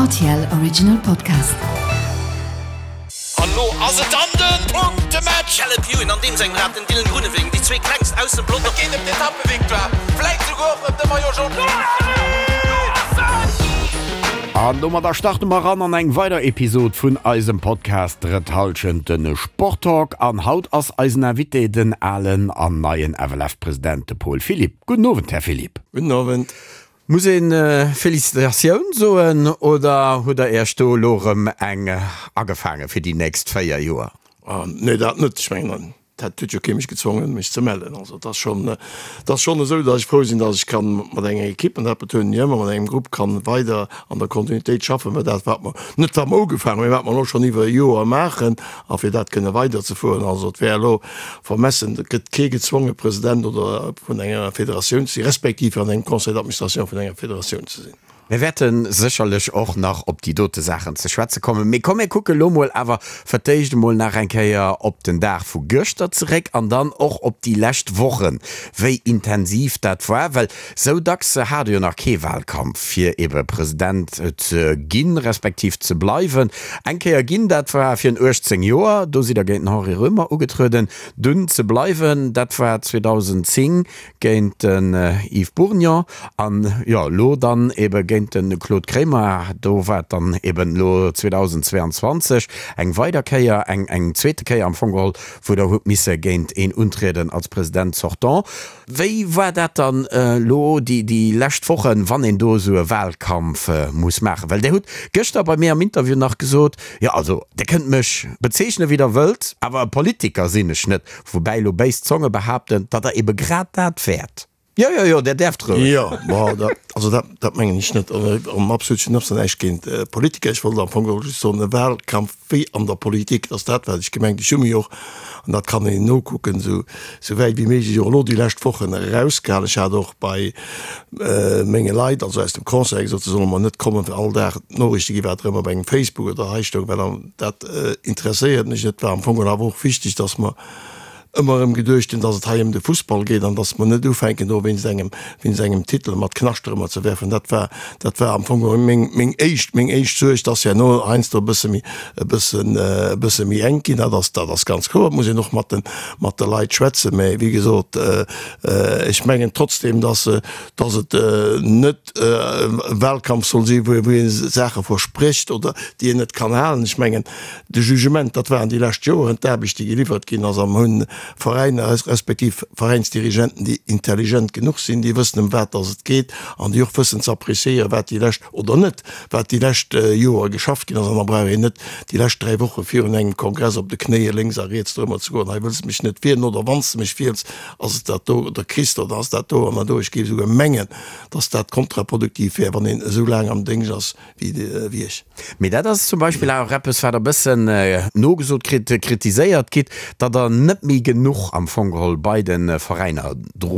RTL Original Podcast. An lo ass et dann den Punktematch! Caleb Ewan an deem sengem Rad, den Dylan Groenewegen, déi zwee klengst aus dem Pelotong. Et geet ëm d'Etappevictoire, vläit souguer och ëm de Maillot Jaune. An domadder starte mer eran an eng weider Episod vun eisem Podcast Drëtt Hallschent, de Sporttalk. An haut ass eisen Invité den alen an neien FLF-President, de Paul Philipp. Gudden Owend, Här Philipp. Gudden Owend. Muss een Felicitatioun soen oder hutt der Iech do elo erëm eng agefaange fir déi nächst 4 Joer? Nee, dat net. Ech mengen, dat huet jo kee mech gezwongen, mech ze mellen. Also et ass schonn, et ass schonn esou, datt ech frou sinn, datt ech kann mat enger Equipe, an dat betounen ech ëmmer, mat engem Grupp kann weider an der Kontinuitéit schaffen, well dat wat mer, net wat mer ugefaangen hunn, mee wat mer elo schonn iwwer e Joer maachen, a fir dat kënne weiderzefueren. Also et wär elo vermessen, et gëtt kee gezwonge President oder vun enger Federatioun ze sinn, respektiv an engem Conseil d'administration vun enger Federatioun ze sinn. Mir wäerte sécherlech och nach op déi dote Saachen ze schwätze kommen. Mee komm mir kucke lo mol awer fir d'éischt emol nach eng Kéier op den Dag vu gëschter zeréck an dann och op déi lescht Wochen, wéi intensiv dat war. Well sou dacks hat e jo nach kee Wahlkampf, fir ebe President ze ginn, respektiv ze bleiwen. Eng Kéier ginn, dat war virun 18 Joer, do sidd Der géint den Henri Roemer ugetrueden. Dunn ze bleiwen, dat war 2010 géint den Yves Bourgnon an jo elo dann ebe géint de Claude Kremer. Do war et dann eben elo 2022 eng weider Kéier, eng eng zweete Kéier am Fong geholl, wou Der hutt misse géint een untrieden als President sortant. Wéi war dat dann elo déi déi lescht Wochen, wann een do esou e Wahlkampf muss maachen? Well Der hutt gëschter bei mir am Interview nach gesot, Jo, also Der kënnt mech bezeechnen, wéi Der wëllt, awer e Politiker sinn ech net. Woubäi elo béis Zonge behaapten, datt Der ebe grad dat wäert. Jo, jo, jo, Der däerft roueg. Jo, ma dat, also dat, dat mengen ech net. An absolut, ech hunn absolut näischt géint Politiker. Ech wollt am Fong geholl just soen, e Wahlkampf wéi an der Politik, dat ass dat, wat ech gemengt. Ech hu mech och, an dat kann een nokucken, esou, esou wäit wéi méiglech och elo déi lescht Wochen erausgehalen. Ech hat och bei menge Leit, also aus dem Conseil, gesot, se solle mer net kommen, fir all Dag d'Noriichte ginn, wat erëm op engem Facebook oder hei stoung, well dat interesséiert mech net. War am Fong awer och wichteg, dass mer ëmmer erëm geduecht hunn, dass et hei ëm de Fussball geet an dass mer net ufänken, do wéinst engem, wéinst engem Titel mat Knascht erëmmer ze werfen. Dat war, dat war am Fong meng, meng éischt, meng éischt Suerg. Dass herno heiansdo e bësse méi, e bëssen, e bësse méi enk ginn, dat ass, dat ass ganz kloer. Et muss een och mat de, mat de Leit schwätzen. Mä wéi gesot, Ech mengen trotzdem, dass dass et net e Wahlkampf soll sinn, wou ee Saache versprécht oder déi een net kann halen. Ech mengen, de Jugement, dat waren déi lescht Joeren, d'Aarbecht, déi geliwwert ginn ass, a mer hunn Veräiner respektiv Veräinsdirigenten, déi intelligent genuch sinn, déi wëssen, ëm wat dass et geet an déi och wëssen ze appréciéieren, wat déi lescht oder net, wat déi lescht Joer geschafft ginn ass. An da brauch een net déi lescht 3 Woche virun engem Kongress op de Knéie lénks a riets dorëmmer ze goen, hei wëlls de mech net wielen oder wann s de mech wiels, ass et dat do oder kriss de oder ass dat do an dat do. Ech géif esouguer mengen, dass dat kontraproduktiv wär, wann een esou laang am Déngscht ass wéi ech. Mee dat ass zum Beispill awer och eppes, wat e bëssen nogesot kritt, kritiséiert gitt, datt Der net méi genuch am Fong geholl bei de Veräiner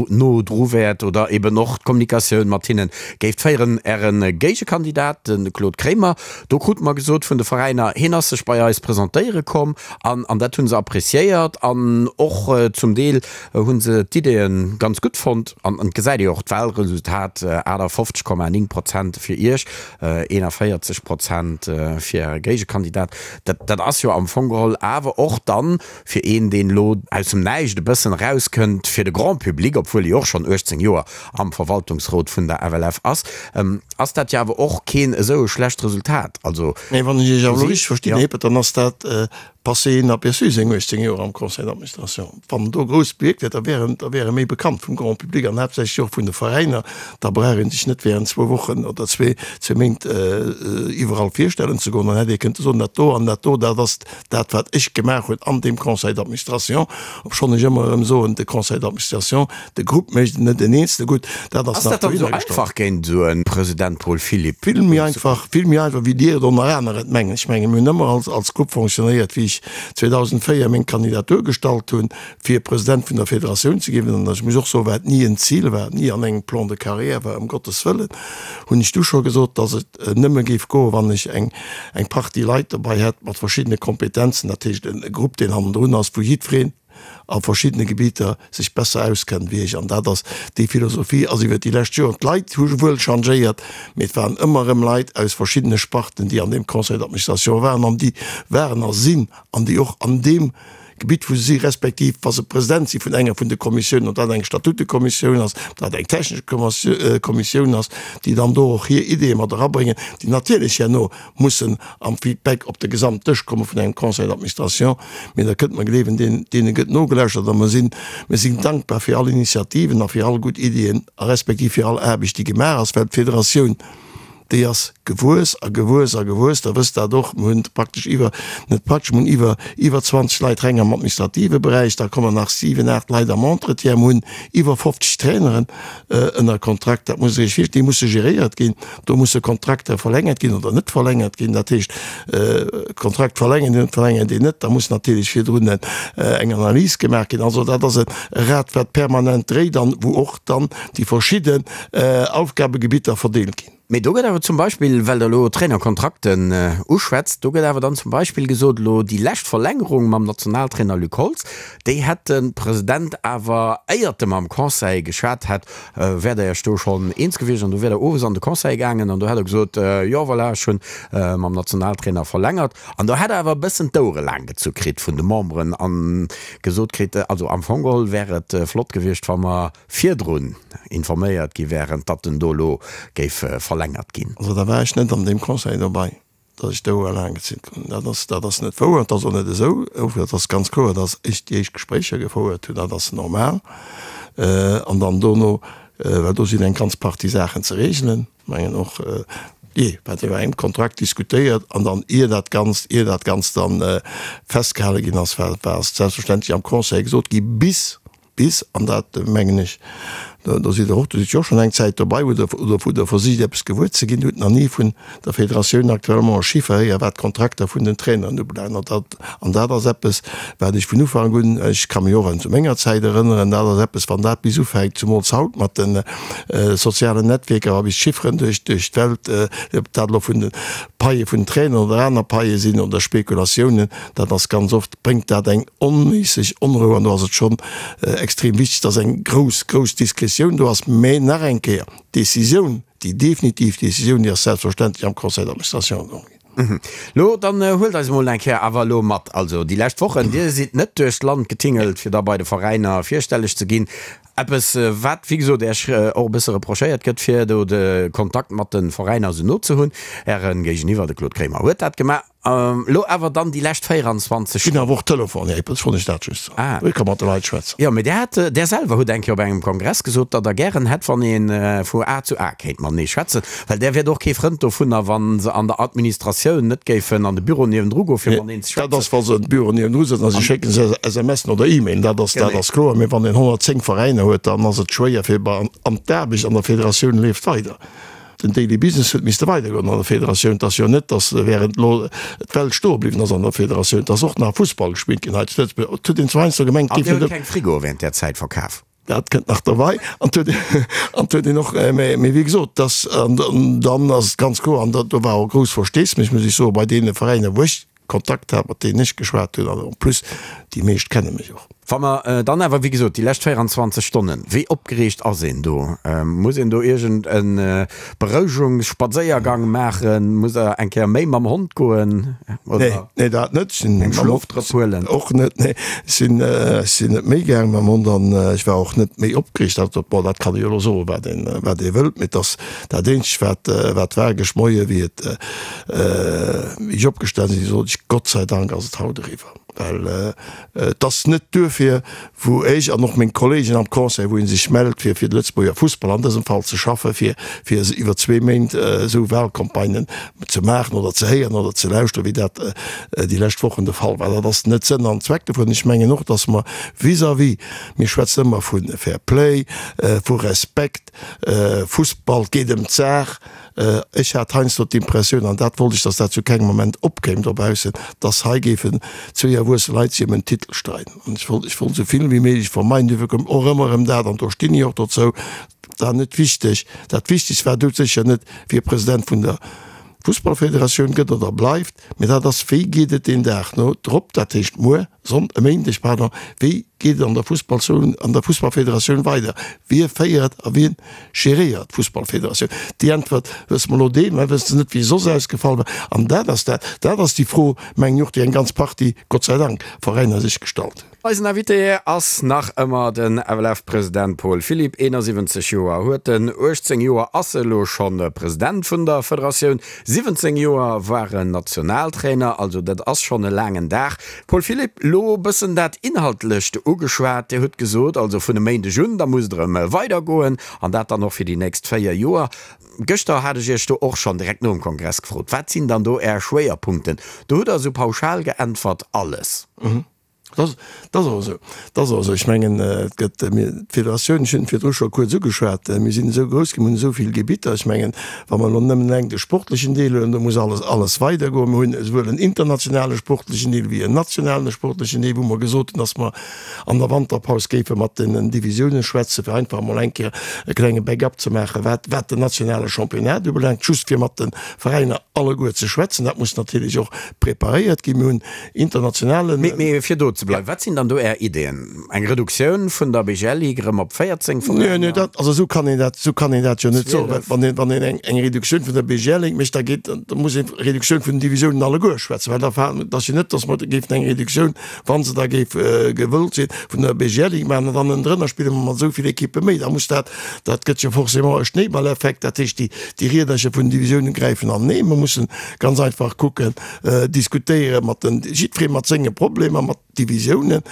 no dru wäert oder eben och d'Kommunikatioun mat hinne géift féieren. Äre Géigekandidat, de Claude Kremer, do krute mer gesot vun de Veräiner, hien ass sech bei eis presentéiere komm an an dat hu se appreciéiert an och zum Deel hu se d'Ideeë ganz gutt fonnt. An et gesäit ee jo och d'Wahlresultat, 58,9 Prozent fir Iech, 41 Prozent fir Äre Géigekandidat. Dat dat ass jo am Fong geholl awer och dann fir een, deen elo aus dem Näischt e bëssen erauskënnt, fir de Grand public, obwuel e jo och schonn 18 Joer am Verwaltungsrot vun der FLF ass, ass dat jo awer och keen esou e schlecht Resultat. Also, Mee wann ech Iech awer elo richteg verstinn, Här Hippert, dann ass dat passé inaperçu, seng 18 Joer am Conseil d'administration. Wann en do grouss bewierkt hätt, da wär en, da wär e méi bekannt vum Grand public an haaptsächlech och vun de Veräiner. Da brauch ee sech net während zwou Wochen oder zwee, zwee Méint iwwerall virstellen ze goen. Dann hätt ee kënnte soen, dat do an dat do, dat ass dat wat ech gemaach hunn an deem Conseil d'administration, obschonn ech ëmmer erëm soen, de Conseil d'administration, de Grupp mécht et net en Eenzele gutt, dat ass Ass nach dat dann esou dohinnergestallt. einfach géint esou e President Paul Philipp Vill méi einfach, vill méi einfach wéi Dir et ënner aner et mengen. Ech mengen, mir hunn ëmmer als, als Grupp fonctionnéiert, wéi ech 2004 meng Kandidatur gestallt hunn, fir President vun der Federatioun ze ginn, an ech muss och soen, wat ni en Zil war, ni an engem Plan de carrière war, ëm Gottes Wëllen, hunn ech du scho gesot, dass et nëmme géif goen, wann ech eng, eng Partie Leit dobei hätt mat verschiddene Kompetenzen, dat heescht e Grupp, deen hannendrun ass, wou jiddwereen. a verschiddene Gebieter sech besser auskennen wéi ech. An dat ass, déi Philosophie ass iwwert déi lescht Joren, d'Leit hu wuel changéiert, mee et waren ëmmer erëm Leit aus verschiddene Sparten, déi an deem Conseil d'administration waren an déi waren a sinn an déi och an deem Gebitt wou se si respektiv wa se President si vun enger vun de Kommissiounen, ob dat eng Statutekommissioun ass, ob dat eng technesch Kommissioun ass, déi dann do och hir Ideeë mat erabréngen, déi natierlech herno mussen am Feedback op de Gesamtdësch komme vun engem Conseil d'administration. Mee Der kënnt mer gleewen, deene gëtt nogelauschtert a mer sinn, mir sinn dankbar fir all Initiativen a fir all gutt Iddien a respektiv fir all Aarbecht, déi gemaach ass, well d'Federatioun, déi ass gewuess a gewuess a gewuess. Der wësst dat och, mir hunn praktesch iwwer, net praktesch, mir hunn iwwer, iwwer 20 Leit reng am administrative Beräich, da kommen nach siwen, aacht Leit am Entretien, mir hunn iwwer 50 Traineren ënner Kontrakt. Dat musst Der Iech virstellen, déi musse geréiert ginn, do musse Kontrakter verlängert ginn oder net verlängert ginn. Dat heescht, Kontrakt verlängert een, verlängert een net, da muss natierlech virdrun eng Analys gemaach ginn. Also dat ass e Rad, wat permanent dréit an wou och dann déi verschidden Aufgabegebitter verdeelt ginn. Mee do gëtt awer zum Beispill, well Der elo Trainerkontrakten uschwätzt, do gëtt awer dann zum Beispill gesot, elo déi lescht Verlängerung mam Nationaltrainer Luc Holtz, déi hätt de President awer, éiert e mam Conseil geschwat hätt, wäert Der Iech do schonn eens gewiescht an do wier Der owes an de Conseil gaangen an do hätt Der gesot, jo voilà, ech hunn mam Nationaltrainer verlängert. An do hätt Der awer e bëssen d'Ouere laang gezu kritt vun de Memberen a gesot kritt, also am Fong geholl wär et flott gewiescht, wa mer virdrun informéiert gi wären, datt en do elo géif verlängert ginn. Also da war ech net an deem Conseil dobei, datt ech d'Ouer laang gezunn hunn. Dat ass, dat ass net wouer, et ass och net esou. Et ass ganz kloer, datt ech déi éischt Gespréicher gefouert hunn, dat ass normal. An dann dono, well do sinn eng ganz Partie Saachen ze regelen, mengen och, jee, wat iwwer engem Kontrakt diskutéiert an dann ier dat Ganzt, ier dat Ganzt dann festgehale ginn ass, war, war ass selbstverständlech am Conseil gesot gi bis, Bis, an dat mengen ech, do sidd Der och, do sidd jo och schonn eng Zäit dobei, wou Der, oder wou Der versicht eppes gewuer ze ginn, hutt nach ni vun der Federatioun actuellement e Chiffer héier wat d'Kontrakter vun den Traineren ubelaangt. An dat, an dat ass eppes, wat ech vun Ufank un, ech ka mech och un zu menger Zäit erënneren, dat ass eppes, wann dat bis ufänkt, zumools haut mat de sozialen Netwierker, wa bis d'Chifferen duerch, duerch d'Welt, ob dat elo vun de Paie vun den Traineren oder aner Paie sinn oder Spekulatiounen, dat ass ganz oft, bréngt dat eng onméisseg Onrou an do ass et schonn extrem wichteg, dass eng grouss, grouss Diskretioun do ass. Mä nach eng Kéier, d'Décisioun, déi definitiv Décisioun, déi ass selbstverständlech am Conseil d'administration geholl ginn. Lo, dann huelt eis emol eng Kéier awer elo mat. Also déi lescht Wochen, Dir sidd net duerch d'Land getingelt, fir da bei de Veräiner virstelleg ze ginn. Eppes, wat, wéi gesot, Iech och e bësse reprochéiert gëtt, fir do de Kontakt mat de Veräiner esou no ze hunn. Äre Géigeniwwer, de Claude Kremer, huet dat gemaach. Elo awer dann déi lescht 24 Ginn awer och Telefon, Här Eppels, wollt ech dat just soen. Ah. Ech ka mat de Leit schwätzen. Jo, mee Där hat, Där selwer hutt eng Kéier op engem Kongress gesot, datt Der gären hätt, wann ee vu A zu A kéint matenee schwätzen, well Där wiert och kee Frënd dovunner, wa se an der Administratioun net géifen an de Büro niewendru goen, fir mateneen ze schwätzen. Dat ass, wa se an de Büro niewendru sëtzen a si schécken sech SMSen oder E-Mailen, dat ass, dat ass kloer. Mee wann een 110 Veräiner huet, dann ass et schwéier fir, an d'Aarbecht an der Federatioun leeft weider. Den Daily Business huet misste weidergoen an der Federatioun. Et ass jo net, datt während elo d'Welt stoe bliwwen ass an der Federatioun. Et ass och nach Fussball gespillt ginn hei zu Lëtzebuerg. Et huet een zwar heiansdo gemengt, et géif net. An Dir hutt keng Frigoe während där Zäit verkaf? Dat kënnt nach derbei. An et huet, an et huet een och, mä, mä wéi gesot, dass, an dann ass et ganz kloer, an do war och grouss Versteesmech, muss ech soen, bei deene Veräiner, wou ech Kontakt hat, mat deenen ech geschwat hunn, an en plus, déi meescht kenne mech och. Wa mer dann awer, wéi gesot, déi lescht 24 Stonnen, wéi opgereegt ass een do? Muss een do iergend e Berouegungsspadséiergang maachen? Muss Der eng Kéier méi mam Hond goen oder Nee, dat net. Ech sinn eng Schlofdrëpp huelen? Och net, nee. Ech sinn, ech sinn net méi gaang mam Hond an ech war och net méi opgereegt. Dat, bon, dat kann ee jo elo soen, wat een, wat ee wëllt, mee et ass dat eenzegt, wat, wat war gëscht Moie wéi et, Wéi ech opgestan sinn, sot ech, Gott sei Dank ass et haut eriwwer. Well et ass net duerfir, wou ech an och meng Kollegen am Conseil, wou ee sech mellt, fir fir de Lëtzebuerger Fussball an dësem Fall ze schaffen, fir fir iwwer zwee Méint esou Wahlcampagnen ze maachen oder ze héieren oder ze lauschteren, wéi dat déi lescht Wochen de Fall war. Dat ass net Sënn an Zweck dovun. Ech mengen och, datt mer vis-à-vis, mir schwätzen ëmmer vu Fair Play, vu Respekt, Fussball, et geet ëm d'Saach, Ech hat heiansdo d'Impressioun, an dat wollt ech, datt dat zu kengem Moment opkéim dobaussen, datt hei géifen zwéi erwuesse Leit sech ëm en Titel streiden. An ech wollt, ech wollt esou vill wéi méiglech vermeiden. Duerfir koum och ëmmer erëm dat, an do stinn ech och dozou, dat war net wichteg. Dat Wichtegst war doudsécher net, wie President vun der Fussballfederatioun gëtt oder bleift, mä dat ass, wéi geet et deen Dag no drop, dat heescht muer, Sonn-, e Méindeg, pardon, wéi. geet et an der Fussballzon, an der Fussballfederatioun weider? Wie féiert a wien geréiert d'Fussballfederatioun? Déi Äntwert wësse mer elo dee, mä wësse net, wéi se soss ausgefall war. An dat ass dat, dat ass déi Fro, mengen ech och, déi eng ganz Partie, Gott sei Dank, Veräiner sech gestallt hunn. Eisen Invité ass nach ëmmer den FLF-President Paul Philipp. 71 Joer huet en, 18 Joer ass e lo schonn President vun der Federatioun, 17 Joer war en Nationaltrainer, also dat ass schonn e laangen Dag. Paul Philipp, lo bëssen dat Inhaltlecht ugeschwat. Dir hutt gesot, also vun e Méindeg un, da muss et erëm weidergoen an dat dann och fir déi nächst 4 Joer. Gëschter hat ech Iech do och schonn direkt nom Kongress gefrot, wat sinn dann do Är Schwéierpunkten? Do hutt Der esou pauschal geäntwert, alles. Dat ass och esou. Dat ass och esou. Ech mengen, et gëtt, mir, d'Federatioun, ech hunn et virdru scho kuerz ugeschwat, mir sinn esou grouss ginn, mir hunn esou vill Gebitter. Ech mengen, wa mer elo nëmmen eleng de sportlechen Deel huelen, do muss alles, alles weidergoen. Mir hunn esouwuel en internationale sportlechen Deel wéi en nationalen sportlechen Deel, wou mer gesot hunn, dass mer an der Wanterpaus géife mat den Divisiounen schwätzen, fir einfach emol eng Kéier e klenge Backup ze maachen, wat, wat den nationale Championnat ubelaangt, just fir mat de Veräiner alleguer ze schwätzen. Dat muss natierlech och preparéiert ginn. Mir hunn internationalen. Mee fir do ze bleiwen, wat sinn dann do Är Ideeën? Eng Reduktioun vun der BGL-Ligue erëm op 14 Veräiner? Nee, nee, dat, also esou kann een dat, esou kann een dat jo net soen. Well wann een, wann een eng, eng Reduktioun vun der BGL-Ligue mécht, da geet, da muss een Reduktioun vun den Divisiounen alleguer schwätzen, well da fa, et ass jo net, datt mer géifen eng Reduktioun, wa se da géif gewëllt sinn, vun der BGL-Ligue maachen an dann ënnendrënner spille mer mat esou vill Ekippe méi. Da muss dat, dat gëtt jo forcément e Schnéiballeffekt, dat heescht, déi, déi Riedercher vun den Divisiounen gräifen anenee. Mer mussen ganz einfach kucken, diskutéiere mat den, jiddweree mat senge Problemer, mat Divisiounen.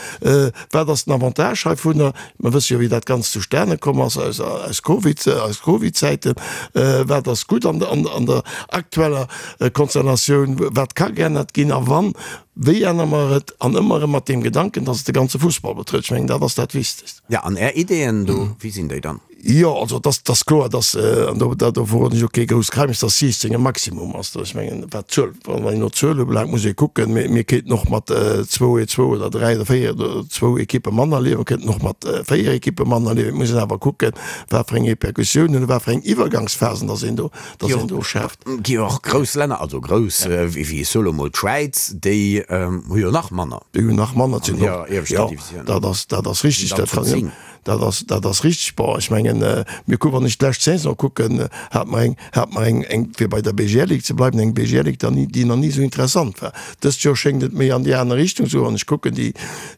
Wat ass den Avantage heivunner? Mer wësse jo, wéi dat Ganzt zustane komm ass aus, aus Covid, aus Covid-Zäiten. Wat ass gutt an, an, an der aktueller Konstellatioun? Wat ka geännert ginn a wann, wéi ännere mer et? An ëmmer erëm mat deem Gedanken, dass et de ganze Fussball betrëfft. Ech mengen, dat ass dat Wichtegst. Ja, an Är Ideeën do, wéi sinn déi dann? Jo, also et ass, et ass kloer, dass, an do, do verroden ech och kee grousst Geheimnis, dass 16 e Maximum ass. Ech mengen, wat d'Zuel, wann een no Zuel ubelaangt, muss ee kucken, mir, mir kéinten och mat zwou, zwou oder dräi oder véier oder zwou Ekippe manner liewen, mir kéinten och mat véier Ekippe manner liewen. Et muss een awer kucken, wat fir eng Repercussiounen oder wat fir eng Iwwergangsphasen dass een do, dass een do schaaft. Gi jo och grouss Länner, also grouss, wéi, wéi ech soe lo mol d'Schwäiz, déi hu jo nach manner. Déi hunn nach manner, an hirer ieweschter Divisioun. Jo, dat ass, dat ass richtig. Dat kann jo. Dat ass, dat ass richtig. Bon, ech mengen, mir kucken, wann ech d'lescht Saison kucken, hat mer eng, hat mer eng, eng, fir bei der BGL-Ligue ze bleiwen, eng BGL-Ligue, déi ni, déi nach ni esou interessant war. Dëst Joer schéngt et méi an déi aner Richtung ze goen. Wann ech kucken, déi,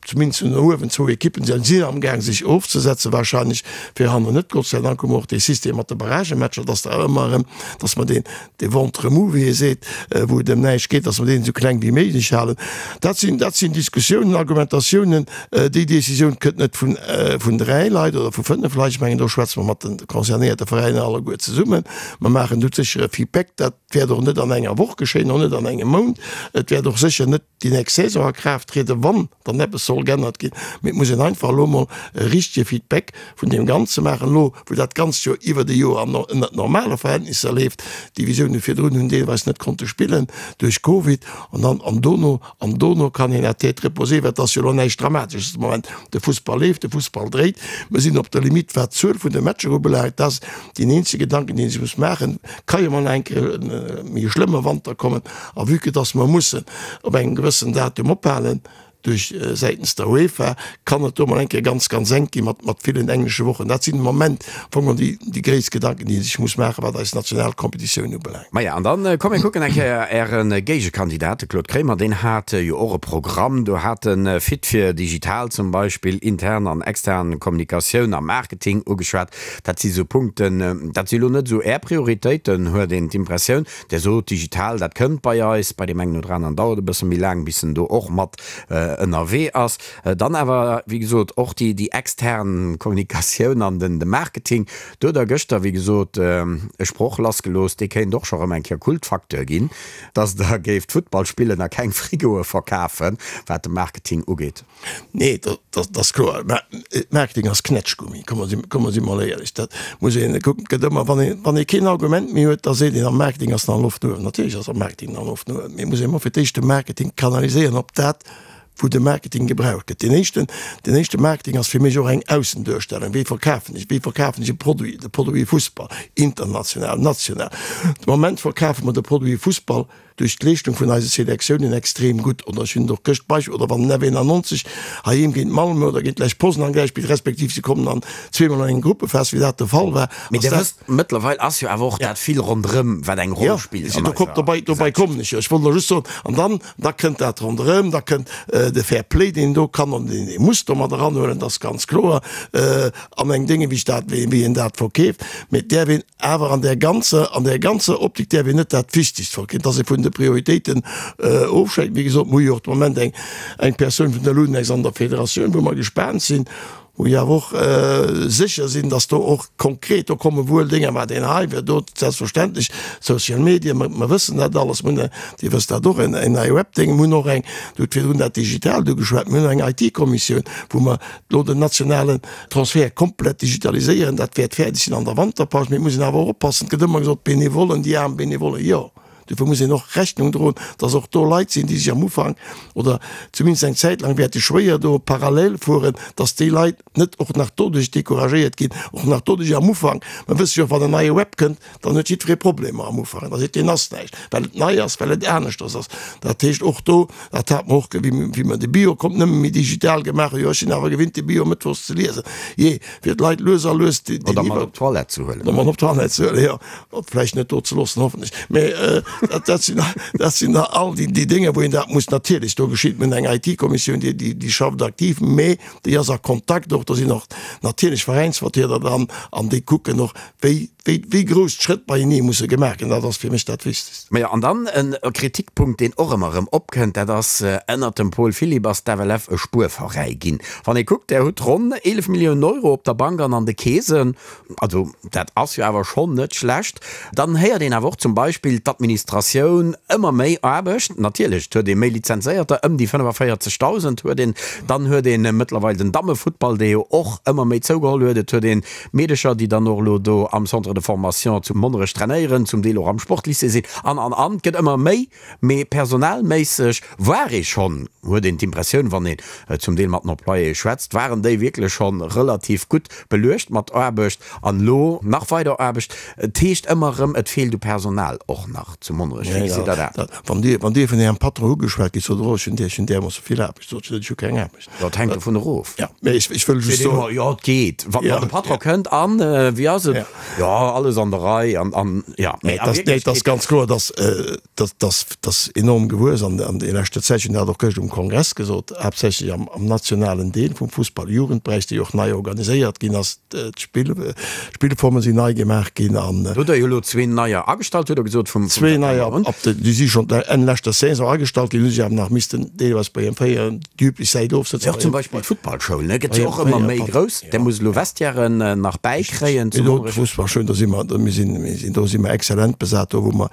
zumindest no uewen, zwou Ekippen, déi sinn amgaang sech ofzesetzen, wahrscheinlech fir hannen net. Gott sei Dank hu mer och dee System mat de Barragematcher, dass der ëmmer erëm, dass mer deen, dee Ventre mou, wéi ee seet, wou et ëm näischt geet, dass mer deen esou kleng wéi méiglech halen. Dat sinn, dat sinn Diskussiounen, Argumentatiounen. Déi Décisioun kënnt net vun, vun dräi Leit oder vu fënnef Leit. Ech mengen, do schwätze mer mat de concernéierte Veräiner alleguer zesummen. Mer maachen do sécher e Feedback. Dat wäert och net an enger Woch geschéien, och net an engem Mount. Et wäert och sécher net déi nächst Saison a Kraaft trieden, wann dann eppes soll geännert ginn. Mee et muss een einfach elo emol e richtege Feedback vun deem Ganze maachen, elo wou dat Ganzt jo iwwert e Joer an ënnert normale Verhältnisser leeft. D'Divisioune virdrun hunn deelweis net konnte spillen duerch Covid an dann an dono an dono kann een à tête reposée, well et ass jo elo näischt Dramatesches de Moment, de Fussball leeft, de Fussball dréit, mer sinn op der Limite wat d'Zuel vun de Matcher ubelaangt. Dat ass deen eenzege Gedanken, deen ee sech muss maachen, ka jo mol nach eng Kéier e méi schlëmme Wanter kommen a vue que dass mer mussen op engem gewëssen Datum ophalen, Duerch säitens der UEFA kann et do mol eng Kéier ganz, ganz enk gi mat, mat villen englesche Wochen. Dat sinn de Moment am Fong geholl déi, déi gréisst Gedanken, déi ee sech muss maachen, wat eis national Competitioun ubelaangt. Maja, an dann komm mir kucken eng Kéier Äre Géigekandidat, de Claude Kremer, deen hat jo och e Programm. Do hat e Fit fir digital zum Beispill, intern an extern Kommunikatioun a Marketing ugeschwat. Dat si sou Punkten, dat si lo net esou Är Prioritéiten, huet een d'Impressioun. Där sot, digital, dat kënnt bei eis, bei deem engen oder aneren dauert e bësse méi laang, bis en do och mat ënnerwee ass. Dann awer, wéi gesot, och déi, déi extern Kommunikatioun an den, de Marketing. Do hutt Der gëschter, wéi gesot, e Sproch lassgelooss, dee kéint och scho rëm eng Kéier Kultfacteur ginn, dass Der géift Futtball spillen a keng Frigoe verkafen, wat de Marketing ugeet. Nee, dat ass kloer. Mä Marketing ass Knätschgummi, komm mer si, komm mer si mol éierlech. Dat muss een kucken. Et gëtt ëmmer, wann een, wann ee keen Argument méi huet, da seet een, am Marketing ass nach Loft no uewen. Natierlech ass am Marketing nach Loft no uewen, mee et muss een ëmmer fir d'éischt de Marketing kanaliséieren op dat, Wou de Marketing gebraucht gëtt. Deen éischten, deen éischte Marketing ass fir mech och eng Aussenduerstellung. Wéi verkafen ech, wéi verkafen ech e Produit, de Produit Fussball, international, national. De Moment verkafe mer de Produit Fussball duerch d'Leeschtung vun eise Selektiounen extrem gutt. Oder ech hunn et och gëscht Beispill, oder wann den F91 heiheem géint Malmö oder géint Lech Poznan gläich spillt, respektiv se kommen an zweemol an eng Gruppephas, wéi dat de Fall war, Mee ass Dir dat. wësst, mëttlerweil ass jo awer och dat vill ronderëm, wat eng Roll spillt Jo, an do eiser dobei, dobei Gesellschaft. kommen ech jo. Ech wollt elo just soen, an dann, da kënnt dat ronderëm, da kënnt de Fair Play, deen een do kann an deen ee muss do mat eranhuelen, dat ass ganz kloer, an eng Dénge wéi ech dat, wéi een dat verkeeft. Mee et däerf een awer an där ganzer, an där ganzer Optik däerf een net dat Wichtigst verkeefen, dass ee vun de Prioritéiten ofschwäikt. Wéi gesot, mir hu jo och de Moment eng, eng Persoun vun der Lunex an der Federatioun, wou mer gespaant sinn, Wou ech awer och sécher sinn, dass do och konkret, do komme wuel Dénger, mä deen hei wär do selbstverständlech, Social Media, mer wëssen dat alles, mir hunn, Dir wësst dat och, en neie Webdéng, mir hunn och eng, Dir hutt virdrun dat Digitaalt ugeschwat, mir hunn eng IT-Kommissioun, wou mer elo den nationalen Transfert komplett digitaliséieren. Dat wäert fäerdeg sinn an der Wanterpaus. Mee et muss een awer och oppassen, et gëtt ëmmer gesot, d'Benevollen, déi aarm Benevollen, jo. Dofir muss een och Rechnung droen, dass och do Leit sinn, déi sech am Ufank oder zumindest eng Zäit laang wäerte schwéier do parallel fueren, dass déi Leit net och nach doduerch decouragéiert ginn, och nach doduerch am Ufank. Mer wësse jo och, wann en neie Web kënnt, dann huet jiddweree Problemer am Ufank. Da seet deen ass näischt, well et nei ass, well et aneschters ass. Dat heescht och do, dat hat mer och, wéi mer de Bio kommt nëmme méi digital gemaach hunn, jo ech sinn awer gewinnt de Bio mëttwochs ze liesen, jee, fir d'Leit lues a lues déi. Oder mat op d'Toilette ze huelen. Oder mat op d'Toilette ze huelen, jo. Vläicht net do ze loossen, hoffentlech. Mä dat sinn, dat sinn da all déi, déi Dénger, wou een dat muss natierlech, do geschitt, mir hunn eng IT-Kommissioun, déi, déi, déi schafft aktiv, mä déi ass a Kontakt och, do sinn och natierlech Veräinsvertrieder dran an déi kucken och, wéi, wéi, wéi grouss d'Schrëtt beienee musse gemaach ginn. Dat ass fir mech dat Wichtegst. Majo, an dann e Kritikpunkt, deen och ëmmer erëm opkënnt, dat ass, Ënnert dem Paul Philipp ass d'FLF e Spuerveräi ginn. Wann ee kuckt, Der hutt ronn 11 Milliounen Euro op der Bank an an de Keesen. Also dat ass jo awer schonn net schlecht. Dann héiert een awer och zum Beispill d'Administratioun, ëmmer méi Aarbecht. Natierlech, et huet ee méi Lizenzéierter, ëm déi 45.000 huet een. Dann huet ee mëttlerweil den Dammefuttball, dee jo och ëmmer méi zougeholl huet. Et huet ee Meedecher, déi dann och elo do am Centre de formation zu Monnerech trainéieren, zum Deel och am Sportlycée sinn an, an, an. Et gëtt ëmmer méi. Mee personalméisseg war ee schonn, huet een d'Impressioun, wann een zum Deel mat den Employéë schwätzt, waren déi wierklech schonn relativ gutt beluecht mat Aarbecht an elo nach weider Aarbecht. Et heescht ëmmer erëm, et feelt u Personal och nach zu Monnerech. Wéi gesitt Der dat? Wann Dir, wann Dir vun Ärem Patron ugeschwat gitt, sot Der och, ech hunn där, ech hunn därmoosse vill Aarbecht. Sot se net, ech hu keng Aarbecht. Dat hänkt dovun erof. Jo, mee ech, ech wëll just soen. Jo, et geet. Wann de Patron kënnt an, wéi ass et? Jo, alles an der Rei an, an jo. Mee a Wierklechkeet. Et ass ganz kloer, dass, dass, dass, dass enorm gewuess an, an der leschter Zäit, ech hunn dat och gëscht um Kongress gesot, haaptsächlech am, am nationalen Deel vum Fussball, Jugendberäich, dee jo och nei organiséiert ginn ass, d'Spill, d'Spillforme sinn nei gemaach ginn an. Do hutt Der jo elo zween neier agestallt, hutt Der gesot, vum, vum Zwee neier, ab de, déi si schonn Enn leschter Saison agestallt ginn, hu sech awer nach missten deelweis bei hirem fréieren déi üblech Säit ofsëtzen. Och zum Beispill d'Futtballschoul, ne, gëtt jo och ëmmer méi grouss. Där muss elo Vestiairen nach bäikréien zu Monnerech. D'Fussballschoul, do si mer, mir sinn, mir sinn, do si mer exzellent besat, do wou mer.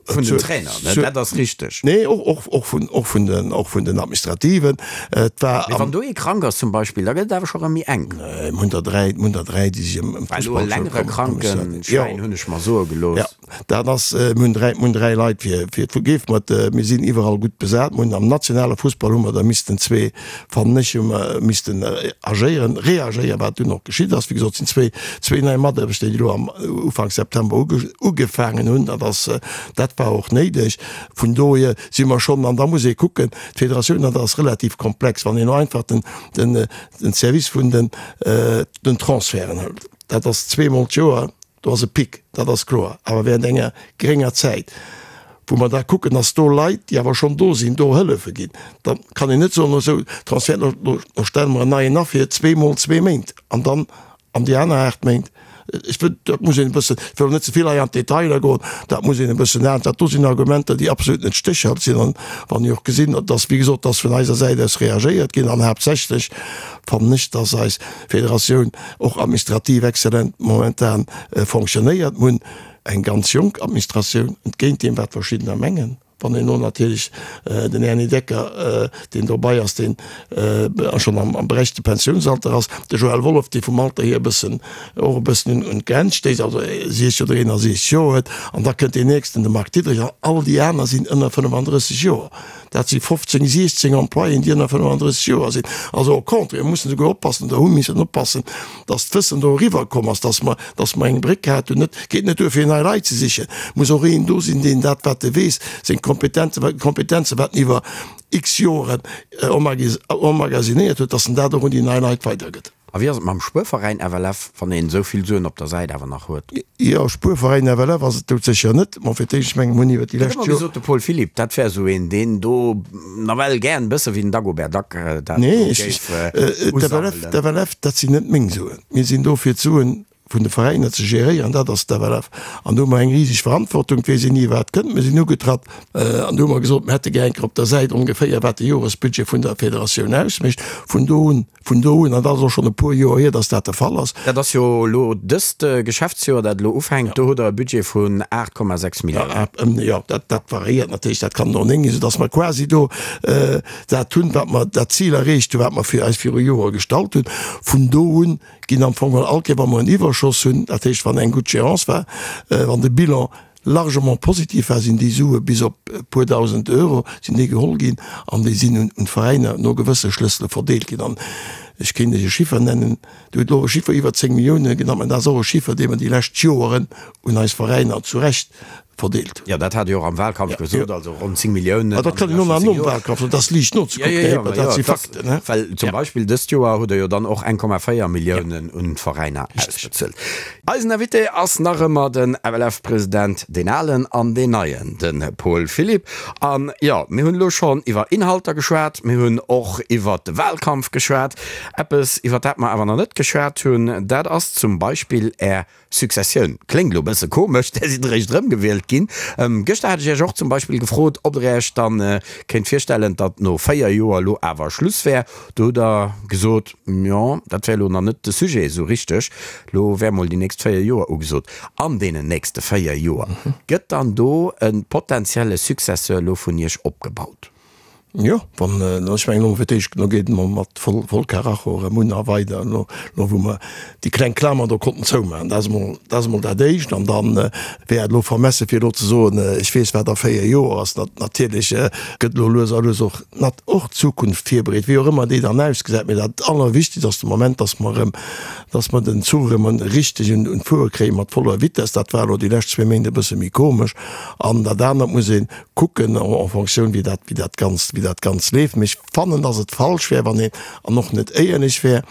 Vun den Trainer, ne, dat ass richteg. Nee, och, och, och vun, och vun den, och vun den Administrativen. Et war. Mee wann do ee krank ass zum Beispill, da gëtt et awer scho rëm méi enk. Mir hunn der dräi, mir hunn der dräi, déi sech ëm, ëm Well elo e d'Fussballschoul längere Krankenschäin, hunn ech mer soe gelooss. Jo. Dat ass, mir hunn 3, mir hunn 3 Leit fir, fir d'Fu-, mat, mir sinn iwwerall gutt besat. Mir hunn am nationale Fussball hu mer der missten zwee, fannen ech, hu mer missten agéieren, reagéieren, wat dunn och geschitt ass. Wéi gesot, sinn zwee, zwee nei Mataarbechter, déi elo am Ufank September uge, ugefaangen hunn. Dat ass, dat war och néideg. Vun dohier si mer schonn, an da muss ee kucken, d'Federatioun, dat ass relativ komplex, wann een elo einfach den, den, den Service vun den, den Transferten hëlt, dat ass zweemol d'Joer, Do ass e Pic, dat ass kloer, awer während enger grénger Zäit, wou mer da kucken, dass do Leit, déi awer schonn do sinn, do hëllefe ginn. Da kann een net soen, esou Transfert, lo stelle mer en neien a fir zweemol zwee Méint an dann an déi aner 8 Méint. Ech wëll, dat muss een e bëssen, ech wëll net ze vill hei an d'Detailer goen, dat muss een e bëssen an, dat do sinn Argumenter, déi absolut net stéchhalteg sinn. An wann ech och gesinn, dass, wéi gesot, dass vun eiser Säit aus reagéiert ginn an haaptsächlech fannen ech, dass eis Federatioun och administrativ exzellent momentan fonctionnéiert. Mir hunn eng ganz jonk Administratioun, entgéint deem wat verschiddener mengen. Wann een elo natierlech den Erny Decker, deen dobei ass, deen schonn am berechtegte Pensiounsalter ass, de Joël Wolff, dee vum Alter hier e bëssen, och e bëssen un d'Grenz stéisst, also 60 oder 61 Joer huet, an da kënnt deen nächsten, de Marc Diederich, an all déi aner sinn ënner 35 Joer. Dat si 15, 16 Employéen, déi ënner 35 Joer sinn. Also au contraire, mir mussen souguer oppassen oder hu missen oppassen, dass d'Wëssen do eriwwer komm ass, dass mer, dass mer eng Bréck hat hunn. Et geet net duer fir nei Leit ze sichen, et muss och een do sinn, deen dat wat e weess, seng Kompetenzen, Kompetenzen wat en iwwer x Joren emmagasinéiert huet, dass en dat och un déi nei Leit weidergëtt. A wéi ass et mam Spuerveräin FLF, wann een esou vill Suen op der Säit awer nach huet? Jo, Spuerveräin FLF ass et doudsécher net. Mä fir d'éischt, ech mengen, mir hunn iwwer déi lescht Joer. Huet ëmmer gesot, de Paul Philipp, dat wär esou een, deen do nawell gären, e bësse wéi den Dagobert Duck, dat do géif usammelen. Nee, d'FLF, dat sinn net meng Suen. Mir sinn do fir d'Suen vun de Veräiner ze geréieren, dat ass d'FLF. An do hu mer eng riseg Verantwortung, et weess een ni wat kënnt. Mir sinn ugetratt an do hu mer gesot, mir hätte gär eng Kéier op der Säit ongeféier wat de Joresbudget vun der Federatioun ausmécht. Vun do un, vun do un, an dat ass och schonn e puer Joer hier, datt dat de Fall ass. Dat ass jo elo dëst Geschäftsjoer, dat elo ufänkt, do hutt Der e Budget vun 8,6 Milliounen. Jo, dat, dat variéiert natierlech, dat kann och 9 ginn, soudatt mer quasi do dat hunn, wat mer, dat Zil erreecht hunn, wat mer fir eis viru Joer gestallt hunn. Vun do un ginn am Fong geholl all Kéier, wa mer en Iwwerschoss hunn, dat heescht, wann eng gutt Gérance war, wann de Bilan largement positiv war, sinn déi Sue bis op e puer dausend Euro sinn déi geholl ginn an déi sinn un d'Veräiner no gewësse Schlëssele verdeelt ginn. An ech kéint Iech e Chiffer nennen, Dir hutt elo e Chiffer iwwer 10 Millioune genannt, mä dat ass och e Chiffer, dee mer déi lescht Joeren un eis Veräiner zu Recht verdeelt hunn. Jo, dat hat Dir och am Wahlkampf gesot, also ronn 10 Milliounen. Dat kann een och nach nom Wahlkampf soen, dat ass liicht nozekucken, Här Hipper, dat si Fakten. Well zum Beispill dëst Joer hutt Der jo dann och 1,4 Milliounen un d'Veräiner ausbezuelt. Eisen Invité ass nach ëmmer den FLF-President, deen alen an deen neien, de Paul Philipp. An jo, mir hunn elo schonn iwwer Inhalter geschwat, mir hunn och iwwer de Wahlkampf geschwat. Eppes, iwwer dat mer awer nach net geschwat hunn, dat ass zum Beispill Är Successioun. Kléngt elo e bësse komesch, där sidd eréischt erëmgewielt ginn. Gëschter hat ech Iech och zum Beispill gefrot, ob Der Iech dann kéint virstellen, datt no 4 Joer elo awer Schluss wär. Do hutt Der gesot, jo, dat wär elo nach net de Sujet esou richteg. Elo wär mol déi nächst 4 Joer ugesot. An deenen nächste 4 Joer, gëtt dann do e potenzielle Successeur elo vun Iech opgebaut? Jo, wann, ech mengen elo fir d'éischt, elo geet et emol mat voll, voll Karacho erëm un a weider, elo, elo wou mer déi kleng Klamer do konnten zoumaachen. Dat ass emol, dat ass emol dat Éischt. An dann wär et elo vermesse fir elo ze soen, ech weess wat a 4 Joer ass. Natierlech gëtt elo lues a lues och, nat, och d'Zukunft virbereet, wéi och ëmmer déi dann ausgesäit. Mee dat Allerwichtigst ass de Moment, dass mer erëm, dass mer den Zuch erëm richteg un, un d'Fuere kréie mat voller Vitess. Dat war elo déi lescht zwee Méint e bësse méi komesch. An dat anert muss een, kucken en fonction wéi dat, wéi dat Ganzt, wéi dat Ganzt leeft. Mee ech fannen, dass et falsch wär, wann een, an och net éierlech wär,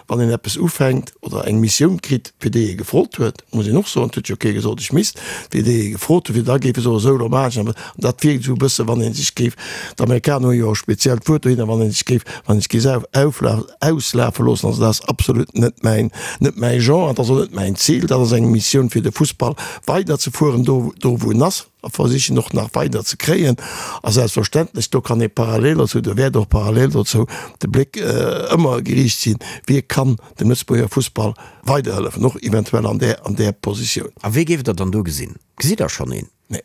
wann een eppes ufänkt oder eng Missioun kritt, fir déi ee gefrot huet, muss een och soen, et huet jo kee gesot, ech misst, fir déi ee gefrot huet, fir da géif e soen, esou, elo maachen ech dat. An dat wierkt esou e bësse wann ee sech géif, d'Amerikaner hu jo e speziellt Wuert dohinner, wann ee sech géif, wann ee sech géif aufla, auslafe loossen. Also dat ass absolut net mäin, net mäi Genre an dat ass och net mäin Zil. Dat ass eng Missioun fir de Fussball weiderzefueren, do, do wou en ass. a versichen och nach weider ze kréien. A selbstverständlech, do kann ee parallel dozou, do wäert och parallel dozou de Bléck ëmmer geriicht sinn, wie kann dem Lëtzebuerger Fussball weiderhëllefen, och eventuell an där, an där Positioun. A wee géift Der dann do gesinn? Gesitt Der schonn een? Nee,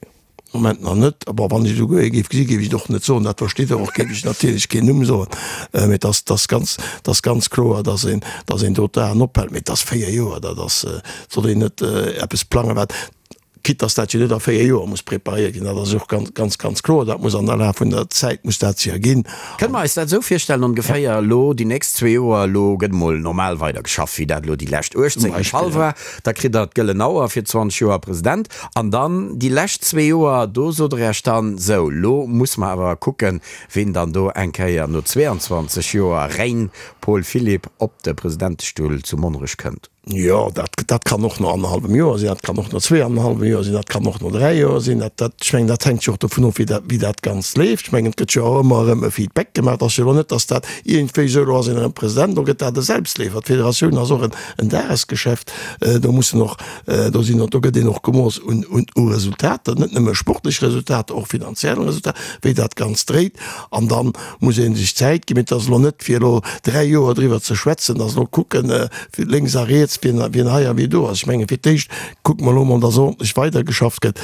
am Moment nach net. Bon, wann ech esouguer ee géif gesinn, géif ech et och net soen, dat versteet Der och, géif ech natierlech keen Numm soen. Mee et ass, et ass ganz, et ass ganz kloer, dass een, dass een do d'Aen ophält. Mee et ass 4 Joer, dat ass, et soll een net eppes plangen, wat, Quitte dass dat jo net a 4 Joer muss preparéiert ginn, dat ass och ganz, ganz, ganz kloer, dat muss an der Laf vun der Zäit muss dat sech erginn. Kënne mer eis dat esou virstellen ongeféier, elo déi nächst zwee Joer, elo gëtt emol normal weider geschafft, wéi dat elo déi lescht 18 de Fall war, da kritt Der d'gëllen Auer fir 20 Joer President an dann déi lescht zwee Joer, do sot Der Iech dann, sou, elo musse mer awer kucken, ween dann do eng Kéier no 22 Joer Règne Paul Philipp op de Presidentestull zu Monnerech kënnt. Jo, dat, dat kann och no annerhallwem Joer sinn, dat kann och no zweeannerhallwem Joer sinn, dat kann och no dräi Joer sinn. Dat, dat, ech mengen, dat hänkt jo och dovun of, wéi dat, wéi dat Ganzt leeft. Ech mengen, et gëtt jo och ëmmer erëm e Feedback gemaach. Et ass jo elo net, datt dat iergendwéi esou, elo ass een erëm President, elo gëtt dat e Selbstleefer. D'Federatioun ass och en, en Dagesgeschäft. Do mussen och, do sinn och, do gëtt een och gemooss un, un, u Resultater, net nëmme sportlech Resultater, och finanziell Resultater, wéi dat Ganzt dréit. An dann muss ee sech Zäit ginn. Mee et ass elo net, fir elo dräi Joer driwwer ze schwätzen, datt elo kucken, lénks a riets, wien, wien hei a wie do ass. Ech menge fir d'éischt kucke mer elo emol, datt ordentlech weidergeschafft gëtt.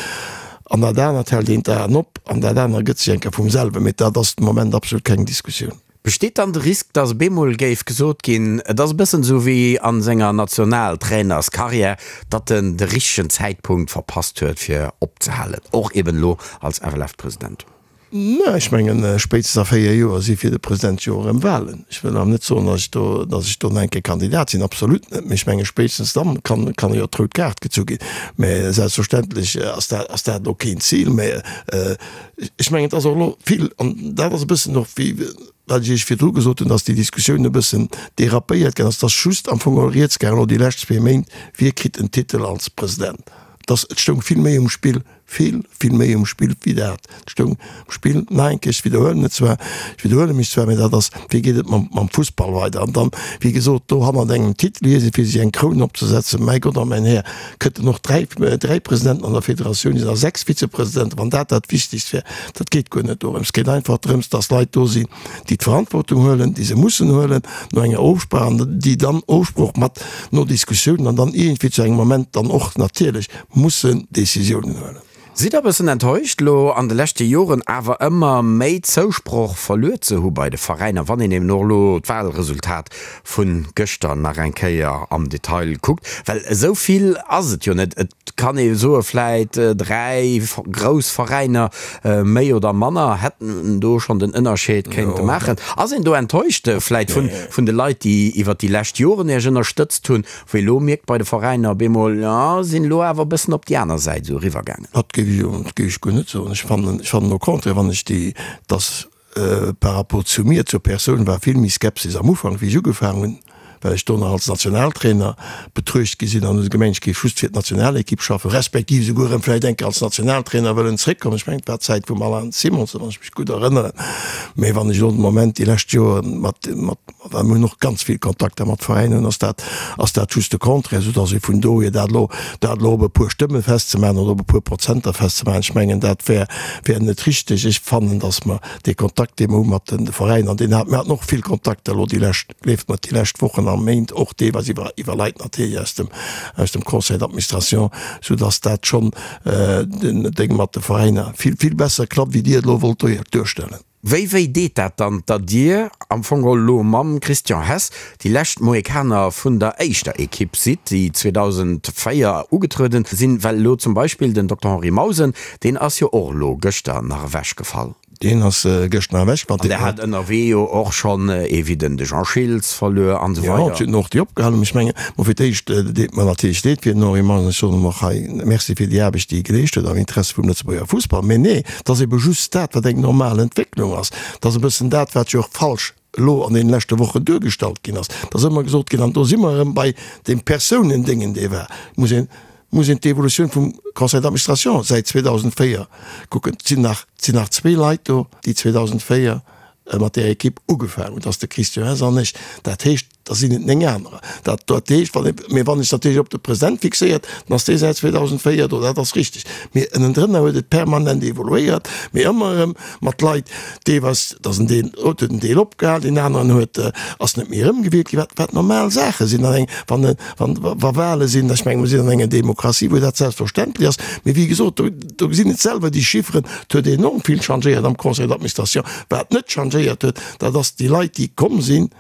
An dat anert hält een d'Aen op an dat aner gëtt sech eng Kéier vum selwen. Mee dat ass de Moment absolut keng Diskussioun. Besteet dann de Risk, datt op eemol géif gesot ginn, et ass e bëssen esou wéi a senger Nationaltrainerskarriär, datt en de richtegen Zäitpunkt verpasst huet fir opzehalen, och eben elo als FLF-President? Mä ech mengen, spéitstens a 4 Joer si fir de President jo erëm Wahlen. Ech wëll awer net soen, datt ech do, datt ech do nach eng Kéier Kandidat sinn, absolut net. Mee ech menge spéitstens dann kann, kann jo d'rout Kaart gezu ginn. Mä selbstverständlech ass dat, ass dat elo keen Zil. Mä ech mengen, et ass och elo vill, an dat ass e bëssen och wéi wat ech Iech virdru gesot hunn, datt déi Diskussioun e bëssen dérapéiert ginn ass, et ass just am Fong geholl rieds gaangen elo déi lescht zwee Méint, wie kritt den Titel als President. Et ass, et stoung vill méi um Spill. Vill, vill méi um Spill wéi dat. Et stoung um Spill, nach eng Kéier, ech widderhuelen et zwar, ech widderhuele mech zwar, mä dat ass, wéi geet et mam, mam Fussball weider? An dann, wéi gesot, do hannert engem Titel hier sinn, fir sech eng Kroun opzesetzen, mäi Gott a mäin Här, kënnten och dräi, dräi Presidenten an der Federatioun sinn a sechs Vizepresidenten, wann dat dat Wichtigst wär. Dat geet guer net dorëms. Et geet einfach drëms, dass Leit do sinn, déi d'Verantwortung huelen, déi se mussen huelen, no enger Ofsprach, an déi dann Ofsprooch mat no Diskussiounen an dann iergendwéi zu engem Moment dann och natierlech mussen Décisiounen huelen. Sidd der e bëssen enttäuscht, elo an de leschte Joren awer ëmmer méi Zousproch verluer ze hu bei de Veräiner, wann een eben och elo d'Wahlresultat vu gëschter nach eng Kéier am Detail kuckt? Well esou vill ass et jo net. Et kann ee soe vläit 3 grouss Veräiner méi oder manner hätten do schonn den Ënnerscheed kéinte maachen. Ass een do enttäuscht vläit vun de Leit, déi iwwert déi lescht Joren Iech ënnerstëtzt hunn, Wéi elo mierkt bei de Veräiner op eemol, jo, sinn elo awer e bëssen op déi aner Säit esou eriwwer gaangen. Dat géif ech jo, dat géif ech guer net soen. Ech fannen, ech fannen au contraire, wann ech déi, dass par rapport zu mir, zur Persoun war vill méi Skepsis am Ufank, wéi ech ugefaangen hunn, well ech do nach als Nationaltrainer betruecht gi sinn an hu se gemengt, ech géif just fir d'Nationalekipp schaffen, respektiv esouguer erëm vläicht eng Kéier als Nationaltrainer wëllen zréckkommen. Ech mengen, et war d'Zäit vum Alain Simonsen, wann ech mech gutt erënneren. Mä wann ech elo de Moment déi lescht Joren mat, mat, Well mir hunn och ganz vill Kontakter mat Veräinen, ass dat, ass dat just de Contraire, soudass ee vun dohier dat elo, dat elo op e puer Stëmme festzemaachen oder op e puer Prozenter festzemaachen, ech mengen, dat wär, wär net richteg. Ech fannen, dass mer dee Kontakt, dee mer hu mat de Veräiner, an deen hat, mir haten och vill Kontakter elo déi lescht, gleeft mer, déi lescht Wochen a Méint, och deelweis iwwer, iwwer Leit natierlech aus dem, aus dem Conseil d'administration, soudass dat schonn den Déng mat de Veräiner vill, vill besser klappt, wéi Dir et elo wollt duerstellen. Wéi wéi deet dat dann, datt Dir am Fong geholl elo mam Christian Hess déi lescht Mohikaner vun der éischter Ekipp sidd, déi 2004 ugetrueden sinn? Well elo zum Beispill den Dokter Henri Mausen, deen ass jo och elo gëschter nach ewechgefall. Deen ass gëschter nach ewechgefall. An Der hat ënnerwee jo och schonn ee wéi den de Jean Schiltz verluer an esou weider. Jo, et sinn och déi opgehalen. Ech mengen, bon, fir d'éischt deet mer natierlech leed fir den Henri Mausen. Ech soen him och hei Merci fir déi Aarbecht, déi e geleescht huet am Interesse vum Lëtzebuerger Fussball. Mä nee, Et ass ebe just dat, wat eng normal Entwécklung ass. Et ass e bëssen dat, wat jo och falsch elo an deene leschte Wochen duergestallt ginn ass. Et ass ëmmer gesot ginn, an do si mer erëm bei deem Persounendéngen, dee war, muss een, muss een d'Evolutioun vum Conseil d'administration säit 2004 kucken. Et sinn nach, et sinn nach zwee Leit do, déi 2004 mat där Ekipp ugefaangen hunn, dat ass de Christian Hess an ech. Dat heescht, da sinn et 9 anerer. Dat, dat heescht, wann ee, mee wann ech natierlech op de President fixéiert, dann ass dee säit 2004 do, dat ass richteg. Mee ënnendrënner huet et permanent evoluéiert, mee ëmmer erëm mat Leit, deelweis, et ass en Deel, huet en Deel opgehal, deen aneren huet, ass net méi erëmgewielt ginn, wat, wat normal Saache sinn an eng, wann, wann, wa Wahle sinn. Ech menge mer sinn an enger Demokratie, wou dat selbstverständlech ass. Mee wéi gesot, do, do gesinn et selwer déi Chifferen, et huet enorm vill changéiert am Conseil d'administration. Wat net changéiert huet, dat ass déi Leit, déi komm sinn,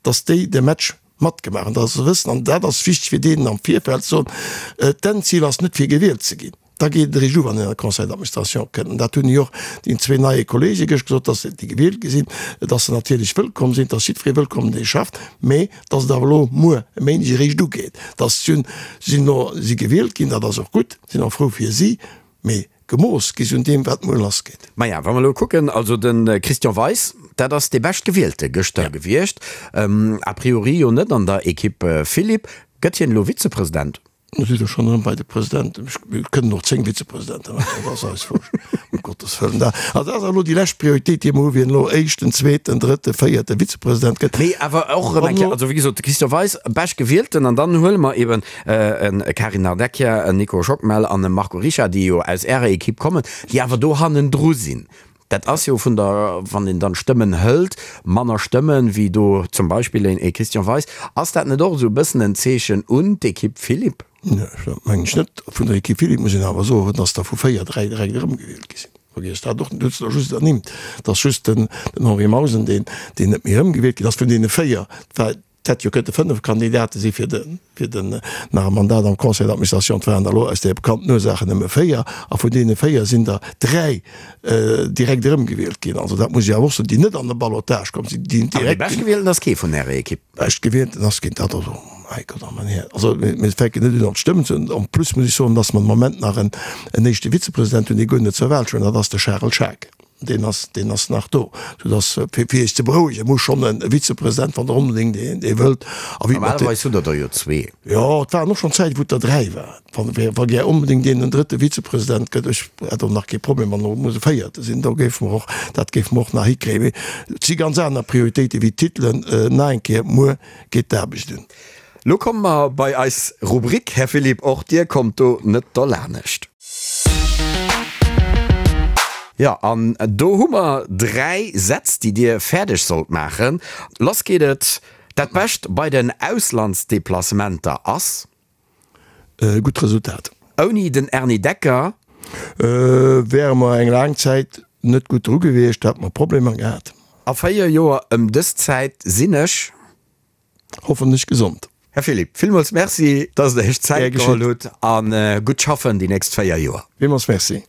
dass déi de Match matgemaach hunn, dass se wëssen, an dat ass wichteg fir deenen am Virfeld ze soen, d'Endzil ass net fir gewielt ze ginn, da geet et eréischt u wann een an de Conseil d'administration kënnt. An dat hunn jo och déi zwee neie Kollege gëscht gesot, dass déi gewielt gi sinn, dass se natierlech wëllkomm sinn, dass jiddweree wëllkomm dee schafft, mä dass et awer elo muer e Méindeg eréischt ugeet, dass si sinn elo si gewielt ginn, dat ass och gutt, sinn och frou fir si, mee Gemooss gi se un deem, wat muer lassgeet. Maja, wa mer elo kucken, also de Christian Weis, dat ass dee Beschtgewielte gëschter gewiescht, a priori jo net an der Equipe Philipp. Gëtt hien elo Vizepresident? Do si der schonn erëm bei de Presidenten. Mir kënnen och 10 Vizepresidente maachen, dat ass eis wurscht, ëm Gottes Wëllen. Dat ass awer elo déi lescht Prioritéit, déi mer hu, wien elo éischten, zweeten, drëtten, véierte Vizepresident gëtt. Mee awer och erëm eng Kéier, also wéi gesot, de Christian Weis, Beschtgewielten, an dann huele mer eben e Karin Nardecchia, en Nico Schockmel an e Marco Richard, déi jo aus Ärer Equipe kommen, déi awer do hannendru sinn. Dat ass jo vun der, wann een dann d'Stëmmen hëlt, manner Stëmmen wéi do zum Beispill een Christian Weis. Ass dat net och esou e bëssen en Zeechen un d'Equipe Philipp? Nee, dat mengen ech net. Vun der Equipe Philipp muss een awer soen, dass der vu 4, 3 direkt erëmgewielt gi sinn. Vergiesst dat och net, hutt se der just ernimmt. Et ass just den Henri Mausen, deen net méi erëmgewielt ginn ass vun deene 4. Et hätt jo kënnte 5 Kandidate si fir de fir den nach e Mandat am Conseil d'administration. Et waren der elo aus de bekannten Ursaachen nëmme 4 a vun deene 4 sinn der 3 direkt erëmgewielt ginn. Also dat muss ech awer och soen, déi net an de Ballottage komm sinn, déi direkt. An dee Beschtgewielten ass kee vun Ärer Ekipp? Beschtgewielten ass keen, dat also, mäi Gott, a mäin Här. Also mir fänken net un an d'Stëmmen ze hunn. En plus muss ech soen, datt mer de Moment nach en éischte Vizepresident hunn, dee guer net zur Wahl stoung, dat ass de Charel Schaack. Deen ass, deen ass nach do. Soudass, fir, fir Iech ze berouegen, muss schonn e Vizepresident, wann Der onbedéngt een, dee wëllt. A wéi mat de. Normalerweis hutt Der der jo zwee. Jo, et waren och schonn Zäiten, wou et der dräi waren. Wann, wa gär onbedéngt een en drëtte Vizepresident gëtt, ech hätt och nach kee Problem, wann och muss e véierte sinn, do géife mer och, dat géife mer och nach hikréien. Mee et si ganz aner Prioritéite wéi d'Titelen. Nach eng Kéier, muer geet d'Aarbecht un. Lo komme mer bei eis Rubrik. Här Philipp, och Dir kommt do net derlanescht. Jo, an do hu mer 3 Sätz, déi Dir fäerdeg sollt maachen. Lass geet et, Dat Bescht bei den Auslandsdeplacementer ass? E gutt Resultat. Ouni den Erny Decker? Wäre mer eng laang Zäit net gutt dru gewiescht, hätte mer Problemer gehat. A 4 Joer ëm dës Zäit sinn ech. Hoffentlech gesond. Här Philipp, villmools Merci, dass Der Iech Zäit geholl hutt a gutt schaffen déi nächst 4 Joer. Villmools Merci.